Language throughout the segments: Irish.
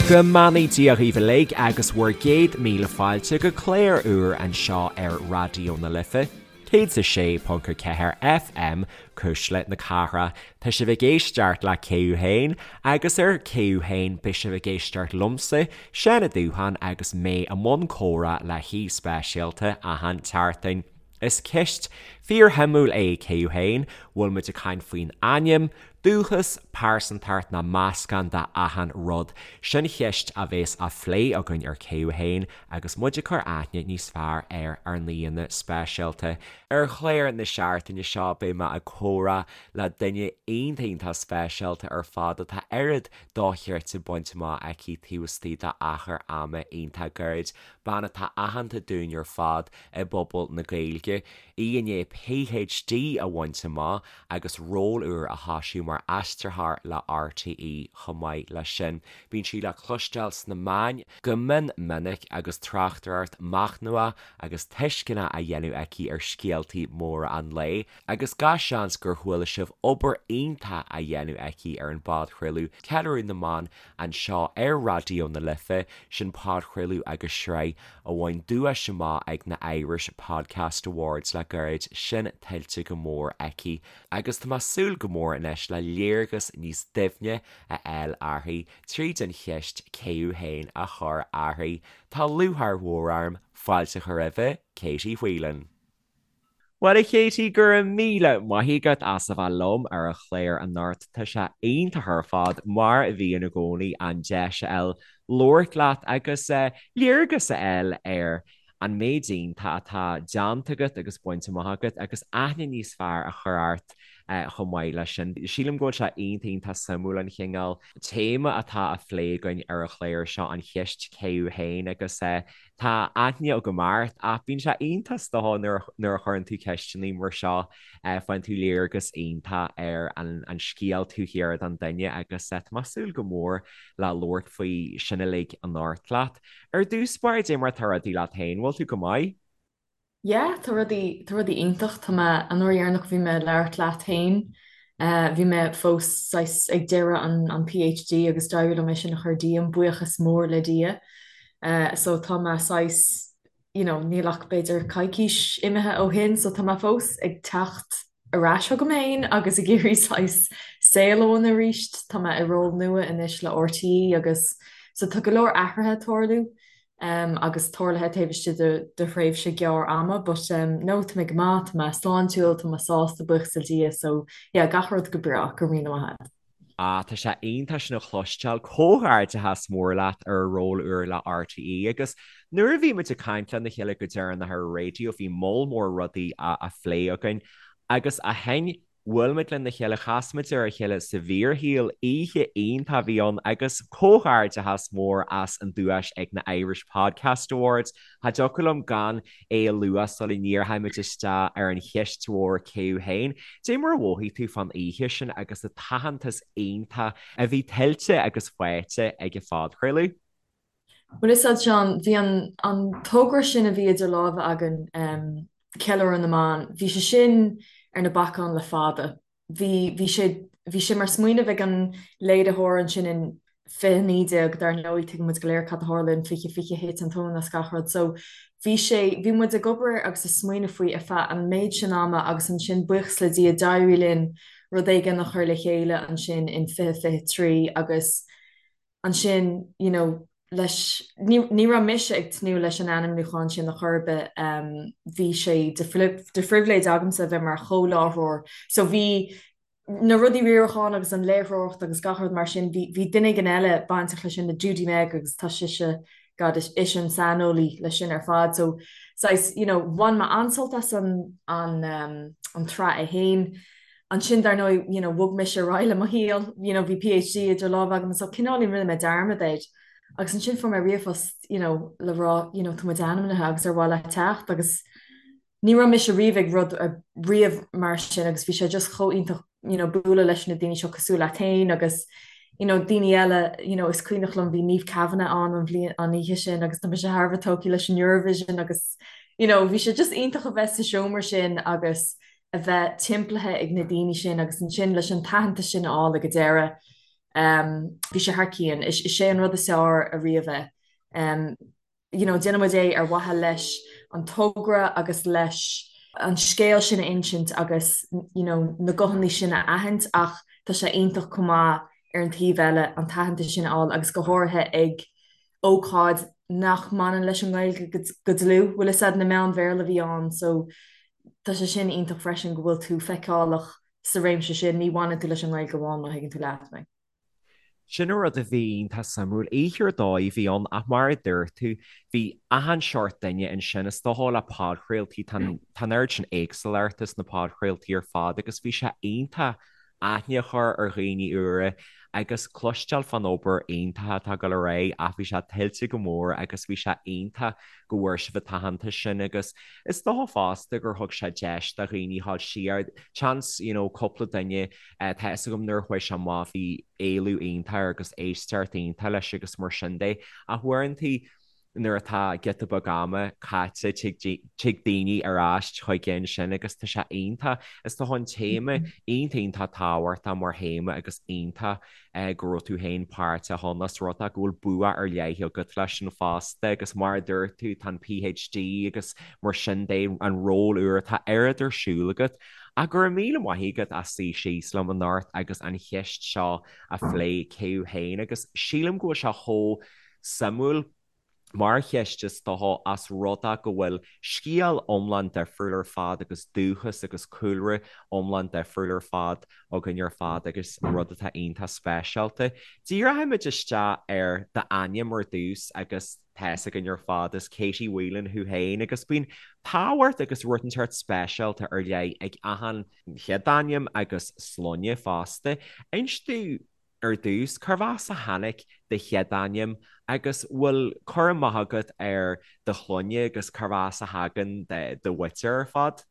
Go mbeannaí Dia dhaoibh uilig agus bhur gcéad míle fáilte go clár úr anseo ar Raidió na Life, 106.4 FM, Cuisle na Cathrach. Tá sibh ag éisteacht le Cé Thú Féin agus ar Cé Thú Féin beidh sibh ag éisteacht liomsa, Seán Ó Dúcháin agus mé i mbun comhrá le haoi speisialta achan tseachtain. Is ceist fíorshuimiúil é Cé Thú Féin, bhfuil muid ag caint faoin ainm, dúchas, pearsantacht nó meascán de achan rud? Sin cheist a bhéas á phlé againn ar Cé Thú Féin agus muid ag cur aithne níos fearr ar ár n-aíonna speisialta. Ar chlár na seachtaine seo beidh mé ag comhrá le duine iontach iontach speisialta ar fad atá oiread dochreidte bainte amach aici taobh istigh d'achar ama iontach gairid, bean atá aitheanta dúinn ar fad i bpobal na Gaeilge, í i ndiaidh PhD a bhaint amach agus ról úr a thoisiú mar aistritheoir le RTÉ chomh maith leis sin. Bíonn sí le cloisteáil sna meáin go mion minic agus tráchtaireacht machnamhach agus tuisceanach á dhéanamh aici ar scéaltaí móra an lae agus gach seans gur chuala sibh obair iontach á dhéanamh aici ar an bpodchraoladh Ceiliúradh na mBan anseo ar Raidió na Life, sin podchraoladh agus sraith a bhain duais amach ag na Irish Podcast Awards le gairid, sin tuillte go mór aici agus tá mé ag súil go mór anois le léargas níos doimhne a fháil uirthi tríd an cheist cé thú féin a chur uirthi. Tá lúcháir mhór orm fáilte a chur roimhe, Katie Whelan. Bhuel, a Katie, go raibh míle maith agat as a bheith liom ar an chlár anocht. Tá sé iontach ar fad, mar a bhíonn i gcónaí, an deis a fháil labhairt leat agus léargas a fháil ar an méid iontach atá déanta agat agus bainte amach agat agus aithne níos fearr a chur ort chomh maith leis sin. Sílim go bhfuil sé iontach iontach suimiúil an chineál téama atá á phlé againn ar an chlár seo, an cheist cé thú féin agus Tá aithne agam ort ach bíonn sé iontach is dócha nuair a chuireann tú ceisteanna mar seo, faigheann tú léargas iontach ar an scéal taobh thiar den duine agus tá mé ag súil go mór le labhairt faoi sin uilig anocht leat. Ar dtús báire, cad é mar atá rudaí leat féin, bhfuil tú go maith? Yeah, tá rudaí, tá rudaí iontach. Tá mé, an uair dheireanach a bhí mé ag labhairt leat féin, bhí mé fós saghas ag deireadh an, an PhD agus d'éirigh liom é sin a chur díom, buíochas mór le Dia. So tá mé saghas, you know, níl ach b'fhéidir coicís imithe ó shin, so tá mé fós ag teacht ar ais chugam féin agus ag iarraidh saghas saol a bhunú arís. Tá mé i ról nua anois le RTÉ agus so tá go leor athruithe ag tarlú. agus tarlaithe taobh istigh de thréimhse gearr ama but no tá mé go maith, tá mé sláintiúil, tá mé sásta, buíochas le Dia so yeah gach rud go breá, go raibh míle maith agat. Ah, tá sé iontach sin a chloisteáil. Comhghairdeachas mór leat ar an ról úr le RTÉ agus nuair a bhí muid ag caint lena chéile go deireanach ar an raidió bhí moll mór rudaí á phlé againn agus ó shin Bhuail muid lena chéile, chas muid ar a chéile sa bhfíorshaol, oíche iontach a bhí ann agus comhghairdeachas mór as an duais ag na Irish Podcast Awards. Cha dtiocfadh liom gan é a lua sula ndíreoidh muid isteach ar an cheist mhór cé thú féin. Cad é mar a mhothaigh tú fán oíche sin agus an t-aitheantas iontach a bhí tuillte agus faighte ag an phodchraoladh? Bhuel, is ea, Seán, bhí an an togra sin a bhí idir lámha againn, Ceiliúradh na mBan, bhí sé sin ar na bacáin le fada. Bhí, bhí sé, bhí sé mar smaoineamh ag an léiritheoir ansin in 2019, dar ndóigh, tuigeann muid go léir cad a tharla in 2020, thit an tóin as gach rud. So, bhí sé, bhí muid ag obair air agus ag smaoineamh faoi ar feadh an méid sin ama agus ansin, buíochas le Dia, d'éirigh linn rud éigin a chur le chéile ansin in 2023 agus, ansin you know leis, ní, ní raibh mise ag tnúth leis an ainmniúchán sin ar chor ar bith, bhí sé de, de phribhléid agamsa a bheith mar chomhláithreoir so bhí na rudaí riaracháin agus an léiritheoireacht agus gach rud mar sin, bhí, bhí duine éigin eile bainteach leis sin, Judy Meg agus tá sise, God, is ise an saineolaí leis sin ar fad so saghas, you know, bhain mé an-sult as an, an, an tsraith é féin. Ansin, dar ndóigh, you know, bhog mise ar aghaidh le mo shaol, you know, bhí PhD idir lámha agam so cineáilín rinne mé dearmad air. Agus ansin fuair mé ríomhphost, you know, le rá, you know, tá muid ainmnithe agus ar mhaith leat teacht agus ní raibh mise riamh ag rud riamh mar sin agus bhí sé just chomh iontach, you know, bualadh leis na daoine seo cosúil leat féin agus, you know, daoine eile, you know, is cuimhneach liom bhí Niamh Kavanagh ann an bhliain, an oíche sin agus tá mise thar a bheith tógtha leis an Eurovision agus, you know, bhí sé just iontach a bheith sa seomra sin agus, a bheith timpeallaithe ag na daoine sin agus ansin leis an t-aitheantas sin a fháil ag an deireadh. Bhí sé thar cionn. Is é an rud is fearr ariamh é. You know, déanann muid é ar mhaithe leis an togra agus leis an scéal sin a insint agus you know, na guthanna sin a aithint ach tá sé iontach chomh maith ar an taobh eile an t-aitheantas sin a fháil agus go háirithe ag ócáid nach mbaineann leis an nGaeilge go dlúth, bhfuil fhios a'd, na meáin Bhéarla a bhí ann so tá sé sin iontach freisin go bhfuil tú feiceálach sa réimse sin, ní bhaineann tú leis an nGaeilge amháin má thuigeann tú leat mé. Sin an rud a bhí iontach suimiúil. Oíche ar dóigh a bhí ann ach mar a dúirt tú, bhí achan seort duine ansin. Is dócha le podchraoltaí, tá an oiread sin éagsúlachta sna podchraoltaí ar fad agus bhí sé iontach aithne a chur ar dhaoine úra agus cloisteáil fán obair iontach atá ag dul ar aghaidh ach bhí sé tuillte go mór agus bhí sé iontach go bhfuair sibh an t-aitheantas sin agus is dócha fosta gur thug sé deis do dhaoine dhul siar, seans you know cúpla duine tá fhios agam nuair a chuaigh sé amach bhí éileamh iontach air agus éisteacht iontach leis agus mar sin de ach uaireanta nuair atá giota beag ama caite tig daoine ar ais chuige ansin agus tá sé iontach. Is dócha an téama iontach iontach tábhachtach mar théama agus iontach go raibh tú féin páirteach ann os rud é go bhfuil bua ar leith agat leis sin fosta agus mar a dúirt tú tá an PhD agus mar sin de an ról úr tá oiread ar siúl agat. Ach go raibh míle maith agat as suí síos liom anocht agus an cheist seo a phlé cé thú féin agus sílim go bhfuil sé chomh suimiúil mar cheist is dócha os rud é go bhfuil scéal iomlán difriúil ar fad agus dúchas agus cúlra iomlán difriúil ar fad againn ar fad agus rud atá iontach speisialta. Díreoimid isteach ar d'ainm ar dtús agus tá fhios againn ar fad is Katie Whelan thú féin agus bíonn tábhacht agus rud inteacht speisialta ar leith ag achan chéad ainm agus sloinne fosta. Inis dúinn Ar dtús, cárbh as a tháinig do chéad ainm agus bhfuil cur amach agat ar do shloinne agus cárbh as a thagann do mhuintir ar fad?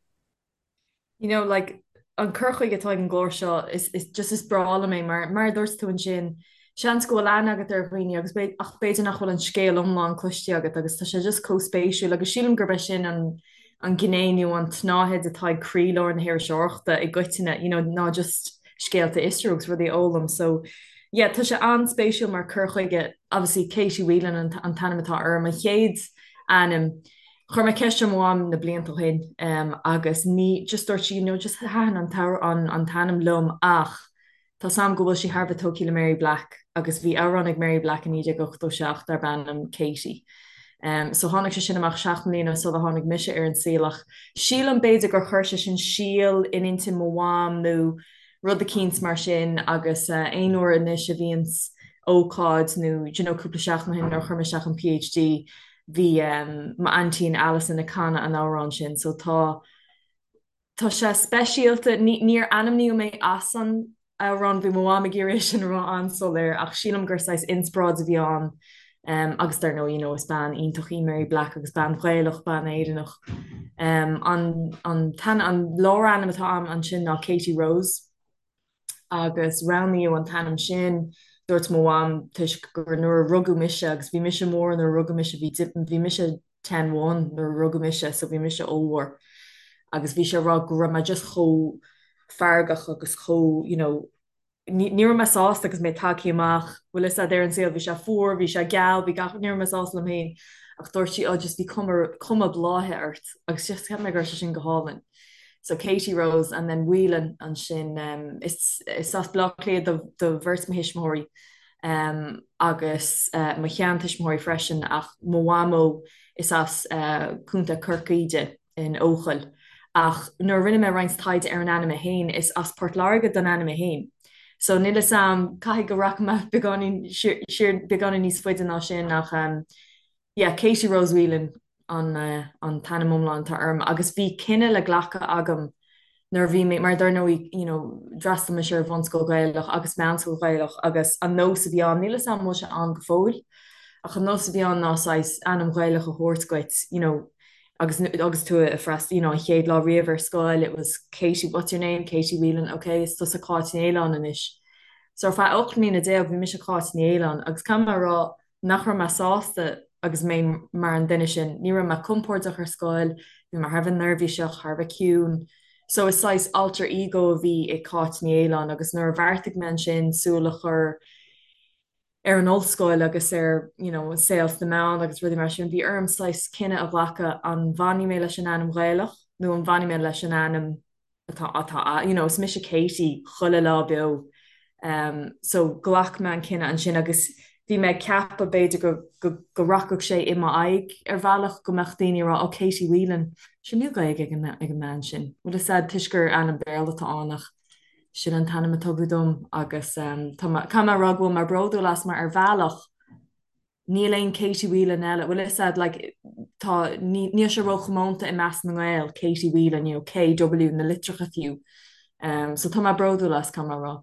You know, like, an cur chuige atá ag an gclár seo, is, is, just is breá liom é mar, mar a dúirt tú ansin, seans go bhfuil aithne agat ar dhaoine agus ach b'fhéidir nach bhfuil an scéal iomlán cloiste agat agus tá sé just chomh spéisiúil agus sílim gurb é sin an, an ghné nó an tsnáthaid atá ag croílár na hiriseoireachta i gcoitinne, you know, ná just scéalta a fhiosrú agus rudaí a fhoghlaim. So, yeah, tá sé an-spéisiúil mar cur chuige. Obviously, Katie Whelan an an t-ainm atá orm, an chéad ainm. Chuir mé ceist ar mo mham na blianta ó shin um, agus ní, just dúirt sí, you know, just thaitin an t-amhrán, an t-ainm liom ach Tá 's a'm go bhfuil sí thar a bheith tógtha le Mary Black agus bhí amhrán ag Mary Black i 1987 darb ainm Katie. So tháinig sé sin amach 7 mbliana sula tháinig mise ar an saol ach sílim b'fhéidir gur chuir sé sin síol in intinn mo mham nó rud eicínt mar sin agus aon uair anois a bhíonns ócáid nó do you know cúpla seachtain ó shin nuair a chuir mé isteach an PhD bhí m'aintín Alison ag canadh an amhráin sin so tá Tá sé speisialta. Níor ainmníodh mé as an amhrán, bhí mo mham ag iarraidh é sin a rá an-soiléir, ach sílim gur saghas inspioráid a bhí ann agus dar ndóigh, you know, is bean iontach í Mary Black agus bean Ghaelach, bean Éireannach. An an an lárainm atá a'm ansin ná Katie Rose. agus roghnaíodh an t-ainm sin, dúirt mo mham, toisc gur nuair a rugadh mise, agus bhí mise mór nuair a rugadh mise, bhí bhí mise ten one nuair a rugadh mise so bhí mise ollmhór agus bhí sé ag rá go raibh mé just chomh feargach agus chomh you know ní ní raibh mé sásta agus mé tagtha amach, bhfuil fhios a'd ar an saol, bhí sé fuar, bhí sé geal, bhí gach, ní raibh mé sásta liom féin ach dúirt sí oh just bhí cuma cuma bláthaithe ort agus just cheap mé go raibh sé sin go hálainn. So Katie Rose and then Whelan ansin um, is, is as Baile Átha Cliath do, do bheirt mo thuismitheoirí um, agus uh, mo sheantuismitheoirí freisin ach mo mhamó is as uh, Contae Chorcaí di in Eochaill. Ach nuair a rinne mé roinnt taighde ar an ainm é féin is as Port Láirge don ainm é féin. So níl fhios a'm caithfidh go rachaidh mé beagáinín siar beagáinín níos faide ná sin ach um, yeah, Katie Rose Whelan an an t-ainm iomlán atá orm agus bhí cinneadh le glacadh agam nuair a bhí mé, mar dar ndóigh, you know, d'fhreastail mise ar bhunscoil Ghaelach agus meánscoil Ghaelach agus an nós a bhí ann, níl 'fhios a'm an bhfuil sé ann go fóill, ach an nós a bhí ann ná saghas ainm Ghaelach a thabhairt dhuit, you know, agus agus tú ag freastal, you know, an chéad lá riamh ar scoil, it was Katie, what's your name? Katie Whelan, okay, is tusa Cáit Ní Fhaoláin anois. So ar feadh 18 mbliana bhí mise Cáit Ní Fhaoláin agus caithfidh mé a rá, nach raibh mé sásta agus mé mar an duine sin. Ní raibh mé compordach ar scoil, bhí mé thar a bheith neirbhíseach, thar a bheith ciúin. So is saghas alter ego a bhí i Cáit Ní Fhaoláin agus nuair a bheartaigh mé ansin súil a chur ar an ollscoil agus ar you know an saol sna meáin agus rudaí mar sin, bhí orm saghas cinneadh a ghlacadh an bhfanfaidh mé leis an ainm Ghaelach nó an bhfanfaidh mé leis an ainm atá atá you know is mise Katie chuile lá beo um so ghlac mé an cinneadh ansin agus bhí mé ag ceapadh b'fhéidir go go go rachadh sé i m'aghaidh ar bhealach go mbeadh daoine ag rá oh Katie Whelan sure níl Gaeilge ag an ag an mbean sin bhfuil fhios a'd toisc gur ainm Béarla atá ann ach sin an t-ainm a tugadh dom agus um tá mé caithfidh mé a rá go bhfuil mé bródúil as mar ar bhealach Níl aon Katie Whelan eile, bhfuil fhios a'd, like, tá, níl sé róchomónta i measc na nGael, Katie Whelan, you know, KW, na litreacha fiú. Um, so tá mé bródúil as, caithfidh mé a rá.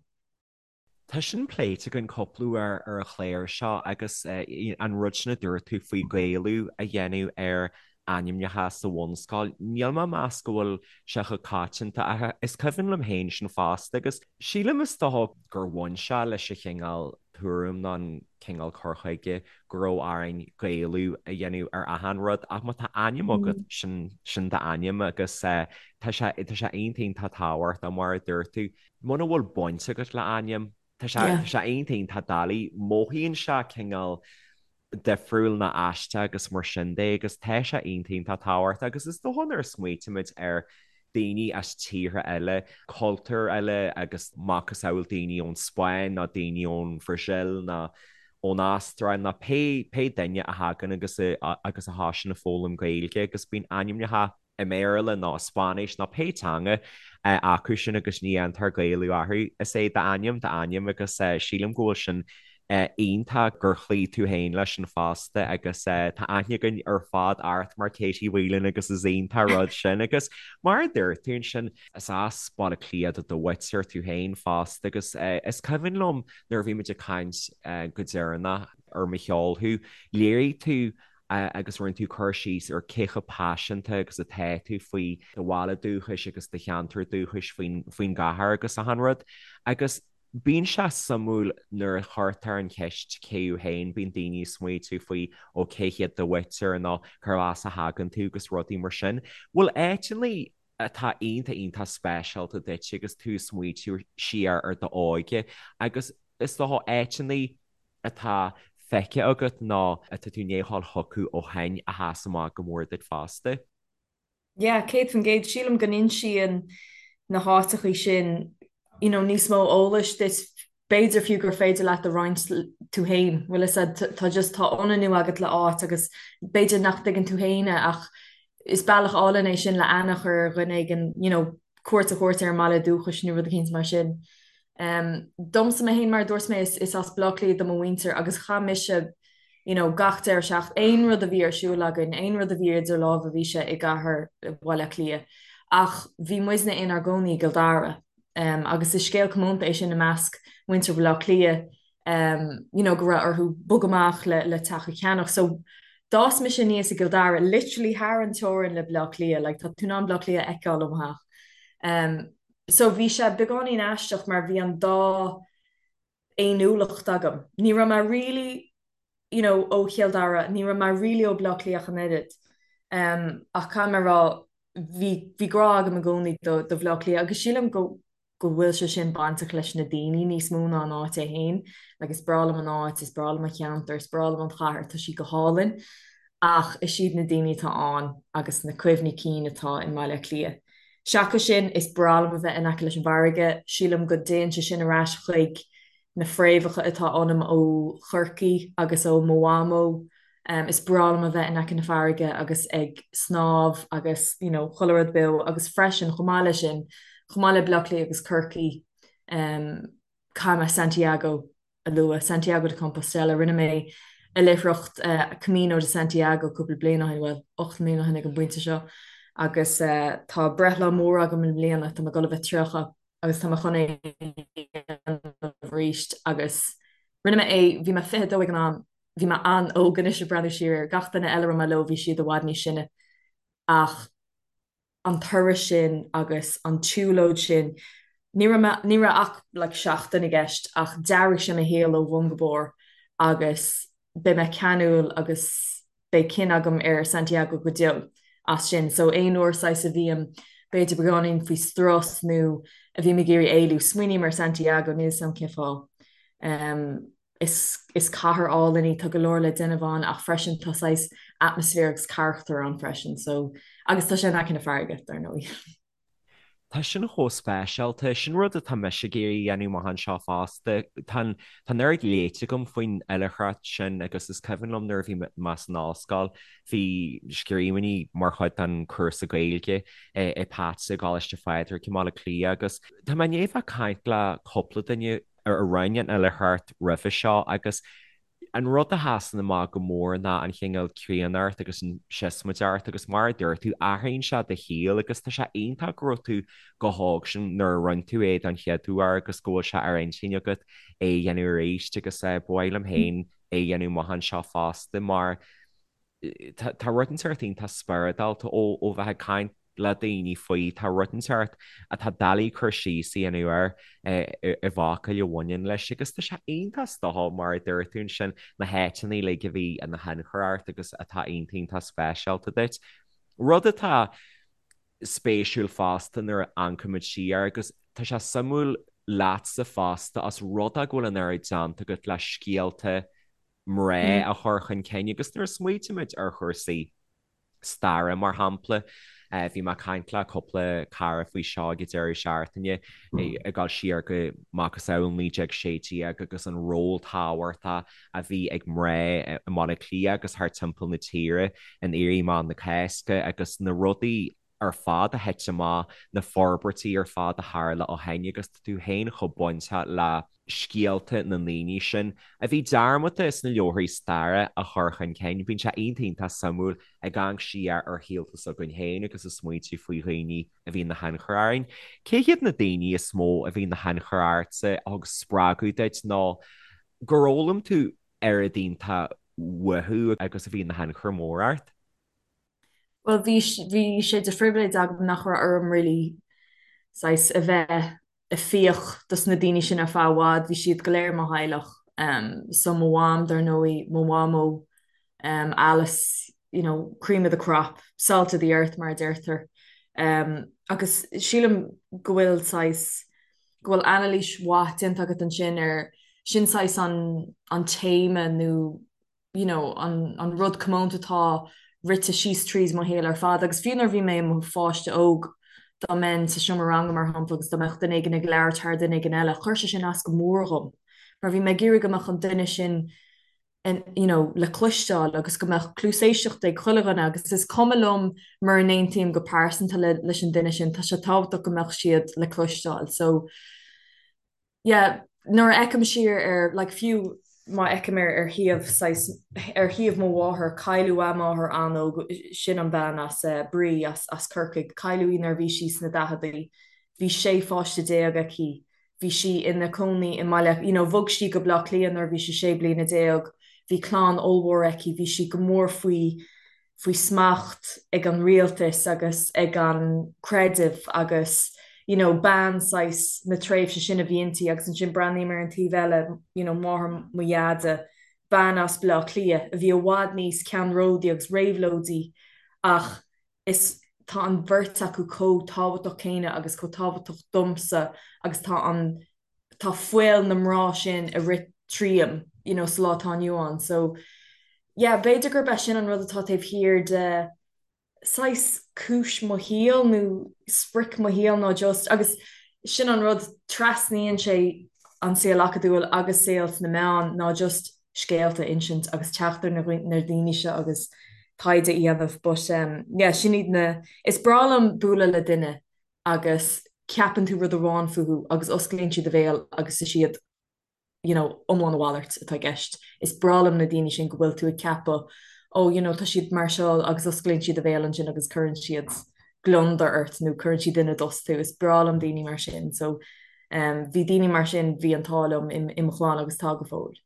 Tá sin pléite againn cúpla uair ar an chlár seo agus an rud sin a dúirt tú faoi Gaelú a dhéanamh ar ainmneacha sa bhunscoil, níl mé ag meas go bhfuil sé chomh coitianta ach is cuimhin liom féin sin fosta agus sílim is dócha gur bhain sé leis an chineál tuairim nó an cineál cur chuige go raibh orainn Gaelú a dhéanamh ar achan rud ach má tá ainm agat sin sin d'ainm agus tá sé tá sé iontach iontach tábhachtach mar a dúirt tú muna bhfuil baint agat le ainm tá sé tá sé iontach iontach doiligh mothaíonn sé cineál difriúil nó aisteach agus mar sin de agus tá sé iontach iontach tábhachtach agus is dócha nuair a smaoitímid ar daoine as tíortha eile, cultúir eile agus macasamhail daoine ón Spáinn nó daoine ón Bhrasaíl nó ón Astráil nó pé pé duine a thagann agus a agus a thosaíonn ag foghlaim Gaeilge agus bíonn ainmneacha i mBéarla nó i Spáinnis nó pé teanga acu sin agus ní dhéantar Gaelú orthu. Is é d'ainm d'ainm agus sílim go bhfuil sin iontach gur chloígh tú féin leis sin fosta agus tá aithne againn ar fad ort mar Katie Whelan agus is iontach rud sin agus mar a dúirt tú ansin is as Baile Átha Cliath do do mhuintir tú féin fosta agus is cuimhin liom nuair a bhí muid ag caint go deireanach ar mo sheol thú, léirigh tú agus rinne tú cur síos ar cé chomh paiseanta agus atá tú faoi do bhaile dúchais agus do cheantar dúchais faoin faoin gcathair agus achan rud. Agus bíonn sé suimiúil nuair a chuirtear an cheist cé thú féin, bíonn daoine ag smaoitiú faoi ó cé hiad do mhuintir nó cérbh as a thagann tú agus rudaí mar sin. Bhfuil áiteanna atá iontach iontach speisialta duit agus tú ag smaoitiú siar ar d'óige agus is dócha áiteanna atá feicthe agat nó atá tú i ndiaidh a dhul chucu ó shin a sheas amach go mór duit fosta? Yeah, 100%. Sílim go n-insíonn na háiteachaí sin you know, níos mó eolais duit, b'fhéidir fiú gur féidir leat a roinnt tú féin, bhfuil fhios a'd, tá just, tá ionannú agat le áit agus b'fhéidir nach dtuigeann tú féin é ach is bealach álainn é sin le aithne a chur ar dhuine éigin, you know, cuairt a thabhairt ar an mbaile dúchais nó rud eicínt mar sin. Domsa mé féin, mar a dúirt mé, is as Baile Átha Cliath do mo mhuintir agus chaith mise you know gach deireadh seachtaine, aon rud a bhí ar siúl againn, aon rud a bhí idir lámha bhí sé i gcathair Bhaile Átha Cliath. Ach bhí muidne inár gcónaí i gCill Dara agus is scéal comónta é sin i measc muintir Bhaile Átha Cliath you know go raibh orthu bogadh amach le le teach a cheannach. So d'fhás mise aníos i gCill Dara, literally thar an teorainn le Baile Átha Cliath, like tá tú in ann Baile Átha Cliath a fheiceáil ó mo theach. So bhí sé beagáinín aisteach mar bhí an dá fhéiniúlacht agam. Ní raibh mé really you know ó Chill Dara, ní raibh mé really ó Bhaile Átha Cliath ach an oiread. Ach caithfidh mé a rá bhí bhí grá agam i gcónaí do do Bhaile Átha Cliath agus sílim go go bhfuil sé sin bainteach leis na daoine níos mó ná an áit é féin. Like is breá liom an áit, is breá liom an cheantar, is breá liom an chathair, tá sí go hálainn. Ach is iad na daoine atá ann agus na cuimhní cinn atá i mBaile Átha Cliath. Seachas sin, is breá liom a bheith in aice leis an bhfarraige. Sílim go dtéann sé sin ar ais chuig na fréamhacha atá ionam ó Chorcaigh agus ó mo mhamó. Is breá liom a bheith in aice na farraige agus ag snámh agus you know chuile rud beo agus freisin chomh maith leis sin, chomh maith le Baile Átha Cliath agus Corcaigh, caithfidh mé Santiago a lua, Santiago de Compostela. Rinne mé oilithreacht Camino de Santiago cúpla bliain ó shin, bhuel, 8 mbliana ó shin ag an bpointe seo, agus tá breithlá mór agam i mbliana, tá mé ag dul a bheith 30 agus tá mé chun é a dhéanamh arís agus rinne mé é, bhí mé 22 ag an am, bhí mé an-óg anois ag breathnú siar air, gach duine eile a raibh mé leo bhí siad i bhfad níos sine ach an turas sin agus an tsiúlóid sin, ní raibh mé, ní raibh ach like seachtain i gceist ach d'athraigh sé mo shaol ó bhun go barr agus beidh mé ceanúil agus beidh cion agam ar Santiago go deo as sin. So aon uair saghas a bhím b'fhéidir beagáinín faoi strus nó a bhím ag iarraidh éalú, smaoiním ar Santiago, níl 'fhios a'm cén fáth. Is is cathair álainn í, tá go leor le déanamh ann ach freisin tá saghas atmaisféar agus carachtar ann freisin so agus tá sé in aice na farraige, dar ndóigh. Tá sin chomh speisialta. Sin rud atá mise ag iarraidh a dhéanamh amach anseo fosta. Tá an tá an oiread léite agam faoin oilithreacht sin agus is cuimhin liom nuair a bhí mé san ollscoil, bhí scríbhinní mar chuid den chúrsa Gaeilge i Pats i gColáiste Phádraig i mBaile Átha Cliath agus tá mé i ndiaidh bheith ag caint le cúpla duine a rinne an oilithreacht roimhe seo agus an rud a sheasann amach go mór ná an chineál críonnacht agus an siosmaideacht agus mar a dúirt tú, athraíonn sé do shaol agus tá sé iontach go raibh tú chomh hóg sin nuair a rinne tú é don chéad uair agus go bhfuil sé ar intinn agat é a dhéanamh arís agus ba mhaith liom féin é a dhéanamh amach anseo fosta mar tá rud inteacht iontach spioradálta ó ó bheith ag caint le daoine faoi. Tá rud inteacht atá doiligh cur síos a dhéanamh air i bhfocail a bhaineann leis agus tá sé iontach is dócha mar a dúirt tú ansin, na háiteanna uilig a bhí ina thionchar ort agus atá iontach iontach speisialta duit. Rud atá spéisiúil fosta nuair a amharcaimid siar agus tá sé suimiúil leatsa fosta os rud é go bhfuil an oiread déanta agat le scéalta mná a chur chun cinn agus nuair a smaoitímid ar chúrsaí staire, mar shampla. Bhí mé ag caint le cúpla cara faoi seo ag an deireadh seachtaine, ag dul siar go macasamhail 1916 agus an ról tábhachtach a bhí ag mná i mBaile Átha Cliath agus thart timpeall na tíre in Éirí Amach na Cásca agus na rudaí ar fad a thit amach, na forbairtí ar fad a tharla ó shin agus tá tú féin chomh bainteach le scéalta na ndaoine sin a bhí dearmadta sna leabharthaí staire a chur chun cinn. Bíonn sé iontach iontach suimiúil ag amharc siar ar shaolta s'againn féin agus ag smaointiú faoi dhaoine a bhí ina thionchar orainn. Cé hiad na daoine is mó a bhí ina thionchar ortsa, a thug spreagadh duit nó gur fhoghlaim tú oiread iontach uathu agus a bhí ina thionchar mór ort? Bhuel, bhí, bhí sé de phribhléid agam nach raibh orm really saghas a bheith ag fiach dos na daoine sin ar feadh i bhfad, bhí siad go léir i mo theaghlach. So mo mham, dar ndóigh, mo mhamó, Alice, you know, cream of the crop, salt of the earth mar a deirtear. Agus sílim go bhfuil saghas, go bhfuil anailís mhaith déanta agat ansin ar, sin saghas an, an téama nó you know, an, an rud comónta atá rite síos tríd mo shaol ar fad. Agus fiú nuair a bhí mé i mo pháiste óg, dá mbeinn sa seomra ranga, mar shampla, agus dá mbeadh duine éigin ag labhairt thar duine éigin eile, chuir sé sin as go mór dhom. Mar bhí mé ag iarraidh go mbeadh an duine sin in, you know, le cloisteáil agus go mbeadh cluas éisteachta ag chuile dhuine agus is cuma liom mura n-aontaím go pearsanta le, leis an duine sin, tá sé tábhachtach go mbeadh siad le cloisteáil. So, yeah, nuair a fheicim siar ar, like, fiú má fheicim ar ar thaobh saghas, ar thaobh mo mháthar, cailleadh a máthair an-óg, sin an bhean as eh, Bree as as Corcaigh, cailleadh í nuair a bhí sí sna daicheadaí, bhí 16 pháiste aici, bhí sí ina cónaí i mBaile, you know, bhog sí go Baile Átha Cliath nuair a bhí sí 16 bliana, bhí clann ollmhór aici, bhí sí go mór faoi faoi smacht ag an rialtas agus ag an creideamh agus you know bean saghas na tréimhse sin a bhí inti agus ansin breathnaím ar an taobh eile you know máthair mo dheaide bean as Baile Átha Cliath a bhí i bhfad níos ceannródaí agus réabhlóidí ach is tá an bheirt acu chomh tábhachtach céanna agus chomh tábhachtach domsa agus tá an tá fuil na mná sin ag rith tríom you know sa lá atá inniu ann so yeah b'fhéidir gurb é sin an rud atá taobh thiar de saghas cúis mo shaoil nó sprioc mo shaoil ná just agus sin an rud trasnaíonn sé an saol acadúil agus saol sna meáin ná just scéalta a insint agus teacht ar na na daoine seo agus taighde a dhéanamh but um yeah sin iad na is breá liom bualadh le duine agus ceapann tú rud amháin fúthu agus osclaíonn siad a bhéal agus is iad you know iomlán a mhalairt atá i gceist. Is breá liom na daoine sin go bhfuil tú ag ceapadh oh you know tá siad mar seo agus osclaíonn siad a bhéal ansin agus cuireann siad gliondar ort nó cuireann siad ina dtost thú. Is breá liom daoine mar sin so um bhí daoine mar sin bhí an t-ádh liom i mo chlann agus tá go fóill.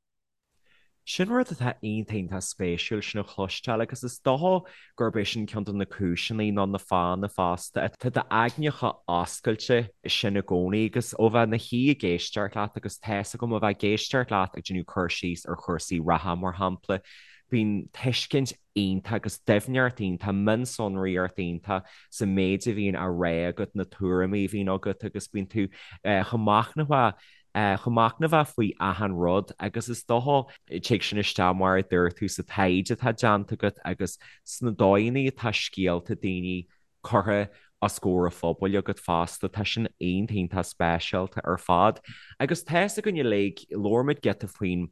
Sin rud atá iontach iontach spéisiúil sin a chloisteáil agus is dócha gurb é sin ceann de na cúiseanna nó na fáthanna fosta atá d'aigne chomh oscailte sin i gcónaí agus ó bheith ina shuí ag éisteacht leat agus tá's agam ó bheith ag éisteacht leat ag déanamh cur síos ar chúrsaí reatha mar shampla. Bíonn tuiscint iontach agus doimhneacht iontach, mionsonraíocht iontach sa méid a bhíonn á rá agat, na tuairimí a bhíonn agat agus bíonn tú chomh machnamhach, chomh machnamhach faoi achan rud agus is dócha, tig sin isteach mar a dúirt tú sa taighde atá déanta agat agus sna dóigheanna atá scéalta daoine curtha os comhair an phobail agat fosta. Tá sin iontach iontach speisialta ar fad. Agus tá's againn uilig, labhair muid giota faoin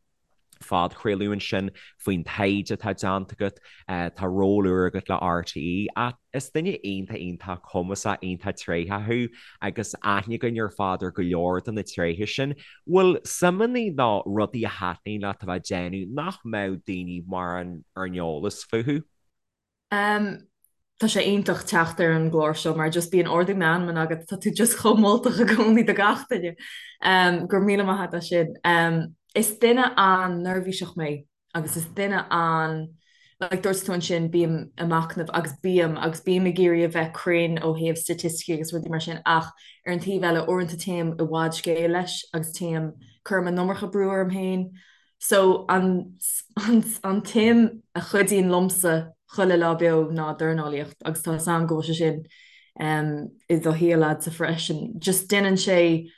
phodchraoladh ansin, faoin taighde atá déanta agat, tá ról úr agat le RTÉ, ach is duine iontach iontach cumasach, iontach tréitheach thú agus aithne againn ar fad ar go leor de na tréithe sin. Bhfuil suimeanna nó rudaí a thaitníonn leat a bheith ag déanamh nach mbeadh daoine mórán ar an eolas fúthu? Tá sé iontach teacht ar an gclár seo mar just bíonn ardú meanman agat, tá tú just chomh moltach i gcónaí do gach duine. Go raibh míle maith agat as sin. Is duine an-neirbhíseach mé agus is duine an, like dúirt tú ansin bím ag machnamh agus bím agus bím ag iarraidh a bheith cruinn ó thaobh staitisticí agus rudaí mar sin ach ar an taobh eile uaireanta téim i bhfad scéil leis agus téim, cuirim an iomarca brú orm féin. So an an tsuim a chuidíonn liomsa chuile lá beo ná dornálaíocht agus tá 'fhios a'm go bhfuil sé sin i do shaol a'dsa freisin. Just déanann sé,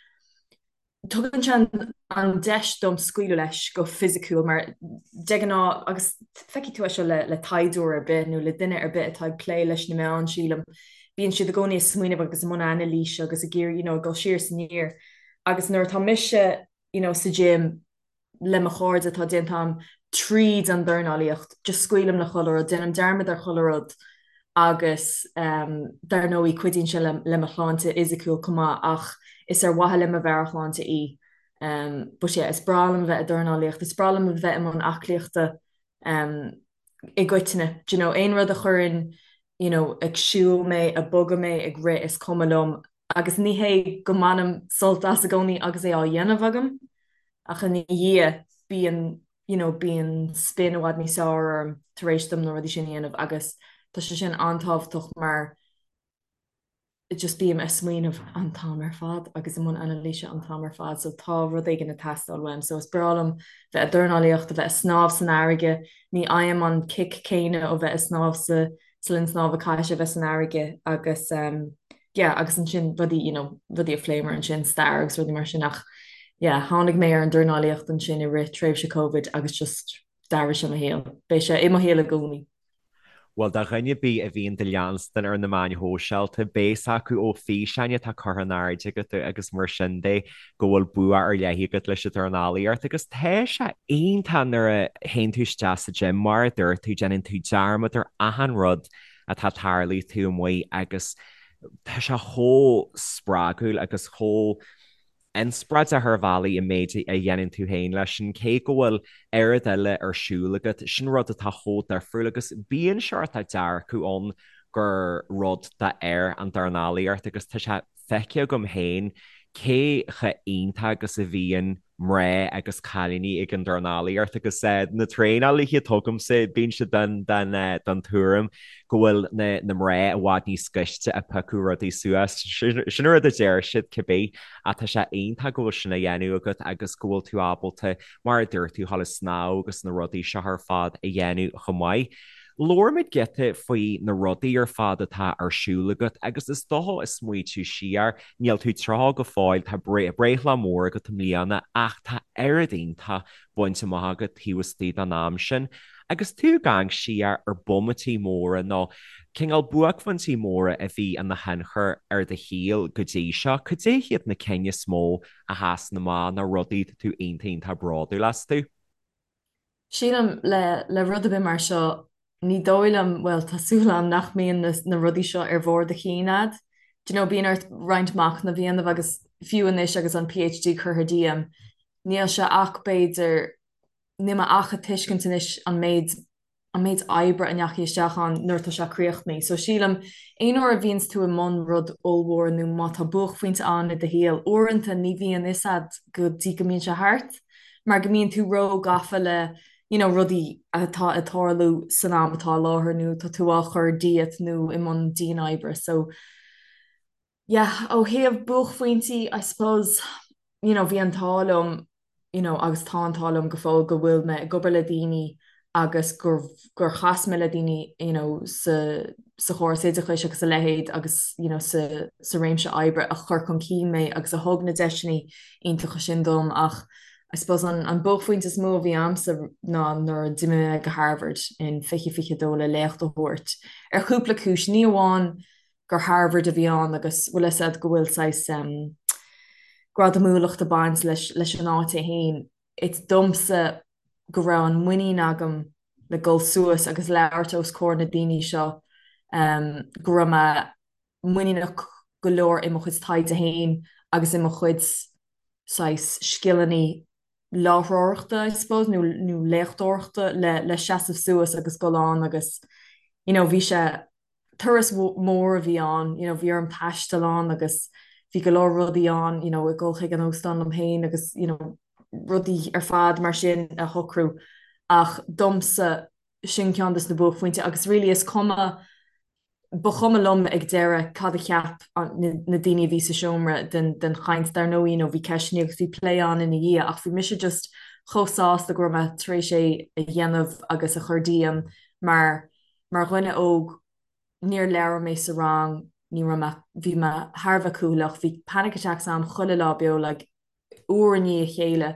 tugann sé an deis dom scaoileadh leis go fisiciúil mar de ghnáth agus feicfidh tú é seo le le taighdeoir ar bith nó le duine ar bith atá ag plé leis na meáin sílim, bíonn siad i gcónaí ag smaoineamh agus i mbun anailíse agus ag iarraidh you know ag dul siar is aniar agus nuair atá mise you know sa gym le mo chairde atá déanta a'm tríd an dornálaíocht, just scaoilim le chuile rud, déanaim dearmad ar chuile rud agus dar ndóigh cuidíonn sé le mo shláinte fhisiciúil chomh maith ach is ar mhaithe le mo mheabhairshláinte í. But yeah, is breá liom a bheith ag dornálaíocht, is breá liom a bheith i mbun aclaíochta i gcoitinne, do you know, aon rud a chuireann you know ag siúl mé, ag bogadh mé, ag rith, is cuma liom agus ní hé go mbainim sult as i gcónaí agus é á dhéanamh agam ach ina dhiaidh bíonn you know bíonn spin i bhfad níos fearr orm tar éis dom na rudaí sin a dhéanamh agus tá sé sin an-tábhachtach mar just bím ag smaoineamh an t-am ar fad agus i mbun anailíse an t-am ar fad so tá rud éigin ag teastáil uaim so is breá liom bheith ag dornálaíocht, a bheith ag snámh san fharraige, ní fhaighim an kick céanna ó bheith ag snámh sa sa linn snámha caithfidh sé a bheith san fharraige agus yeah agus ansin rudaí you know rudaí a phléamar ansin stair agus rudaí mar sin ach yeah tháinig mé ar an dornálaíocht ansin i rith tréimhse Covid agus just d'athraigh sé mo shaol. Beidh sé i mo shaol i gcónaí. Bhuel, do dhuine ar bith a bhíonn do leanstan ar na meáin shóisialta, beidh fhios acu ó fhíseáin atá curtha in airde agat agus mar sin de go bhfuil bua ar leith agat leis an dornálaíocht agus tá sé iontach nuair a théann tú isteach sa gym, mar a dúirt tú, déanann tú dearmad ar achan rud atá tarlaithe taobh amuigh agus tá sé chomh spreagúil agus chomh inspioráideach ar bhealaí an méid a dhéanann tú féin leis sin, cé go bhfuil oiread eile ar siúl agat, sin rud atá chomh difriúil agus bíonn seort dearcadh ann gur rud d'fhir an dornálaíocht agus tá sé feicthe agam féin cé chomh iontach agus a bhíonn mná agus cailíní ag an dornálaíocht agus na traenálaithe atá agamsa, bíonn siad den den tuairim go bhfuil na na mná i bhfad níos gaiste ag piocadh rudaí suas. Sin an rud a deir siad cibé ach tá sé iontach go bhfuil sin á dhéanamh agat agus go bhfuil tú ábalta, mar a dúirt tú, a dhul ag snámh agus na rudaí seo ar fad a dhéanamh chomh maith. Labhair muid giota faoi na rudaí ar fad atá ar siúl agat agus is dócha ag smaoitiú siar, níl tú 30 go fóill, tá breithlá mór agat i mbliana ach tá oiread iontach bainte amach agat taobh istigh den am sin. Agus tú ag amharc siar ar bomaití móra nó cineál buaicphointí móra a bhí ina thionchar ar do shaol go dtí seo, cad é hiad na cinn is mó a sheasann amach nó rudaí atá tú iontach iontach bródúil astu? Sílim, le le rud ar bith mar seo, ní dóigh liom, bhuel, tá súil agam nach mbíonn na na rudaí seo ar bharr do chinn a'd. Do you know, bíonn ort roinnt machnaimh a dhéanamh agus fiú anois agus an PhD curtha díom, níl sé ach b'fhéidir, níl mé ach ag tuiscint anois an méid an méid oibre a ndeachaigh isteach ann nuair atá sé críochnaithe. So sílim, aon uair a bhíonns tú i mbun rud ollmhór nó má tá buaicphointe ann i do shaol, uaireanta ní bhíonn fhios a'd go dtí go mbíonn sé thart. mar go mbíonn tú ró-gafa le you know rudaí atá ag tarlú san am atá i láthair nó tá tú á chur díot nó i mbun dian-oibre so yeah ó thaobh buaicphointí I suppose you know bhí an t-ádh liom you know agus tá an t-ádh liom go fóill go bhfuil mé ag obair le daoine. agus gur gur chas mé le daoine you know sa sa chóras oideachais agus a leithéid agus you know sa sa réimse oibre a chuir chun cinn mé agus a thug na deiseanna iontacha sin dom ach I suppose an an buaicphointe is mó a bhí a'msa ná nuair a d'imigh mé go Harvard in 2022 le léacht a thabhairt ar chúpla cúis, ní amháin gur Harvard a bhí ann agus bhfuil fhios a'd go bhfuil saghas em gradamúlacht ag baint leis leis an áit é féin, it's domsa go raibh an muinín agam le dul suas agus labhairt os comhair na daoine seo, go raibh mé muiníneach go leor i mo chuid taighde féin agus i mo chuid saghas scileanna láithreoireachta, I suppose, nó nó léachtóireachta le le seasamh suas agus dul ann agus you know bhí sé turas mór a bhí ann, you know, bhí orm taisteal ann agus bhí go leor rudaí ann, you know, ag dul chuig an óstán liom féin agus, you know, rudaí ar fad mar sin a shocrú. Ach domsa, sin ceann des na buaicphointí agus really is cuma, ba chuma liom ag deireadh cad a cheap na daoine a bhí sa seomra den, den chaint. Dar ndóigh, you know, bhí ceisteanna agus bhí plé ann ina dhiaidh ach bhí mise just chomh sásta go raibh mé tar éis é a dhéanamh agus a chur díom mar Mar dhuine óg, níor labhair mé sa rang, ní raibh mé, bhí mé thar a bheith cúthaileach, bhí panic attacks a'm chuile lá beo like uair i ndiaidh a chéile,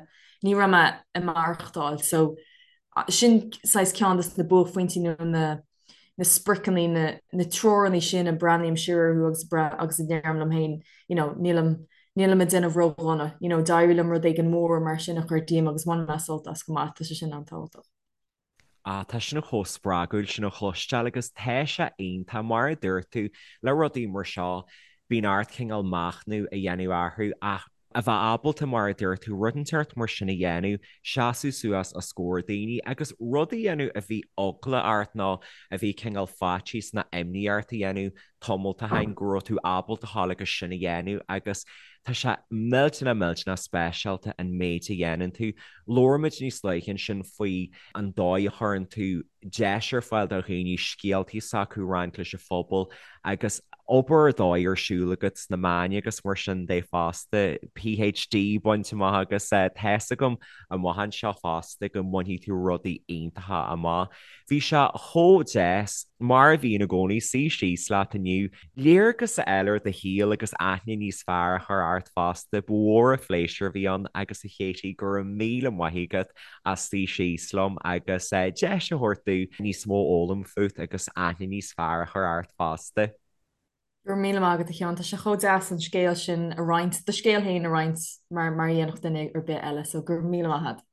ní raibh mé ag maireachtáil. So sin saghas ceann de na buaicphointí nó na na spriocanna, na na treoranna sin a breathnaím siar orthu agus agus a deirim liom féin, you know, nílim nílim ag déanamh ródhona, you know, d'éirigh liom rud éigin mór mar sin a chur díom agus bhain mé sult as chomh maith, tá sé sin an-tábhachtach. Ah, tá sin chomh spreagúil sin a chloisteáil agus tá sé iontach, mar a dúirt tú, le rudaí mar seo, bíonn ort cineál machnamh a dhéanamh orthu ach a bheith ábalta, mar a dúirt tú, rud inteacht mar sin a dhéanamh, seasamh suas os comhair daoine agus rud a dhéanamh a bhí eagla ort nó a bhí cineál faitíos nó imní ort a dhéanamh tamall ó shin go raibh tú ábalta a ghabháil agus sin a dhéanamh agus tá sé millteanach millteanach speisialta an méid a dhéanann tú. Labhair muid níos luaithe ansin faoi an dóigh a chuireann tú deis ar fáil do dhaoine scéaltaí s'acu a roinnt leis an phobal agus obair ar dóigh ar siúl agat sna meáin agus mar sin de fosta, PhD bainte amach agus tá's agam amach anseo fosta go mbainfidh tú rudaí iontacha amach. Bhí sé chomh deas, mar a bhíonn i gcónaí, suí síos leat inniu, léargas a fháil ar do shaol agus aithne níos fearr a chur ort fosta. Ba mhór an phléisiúr a bhí ann agus a Katie, go raibh míle maith agat as suí síos liom agus deis a thabhairt domh níos mó a fhoghlaim fút agus aithne níos fearr a chur ort fosta. Go raibh míle maith agat a Sheáin, tá sé chomh deas an scéal sin a roinnt, do scéal féin a roinnt mar mar a dhéanfadh duine ar bith eile, so go raibh míle maith agat.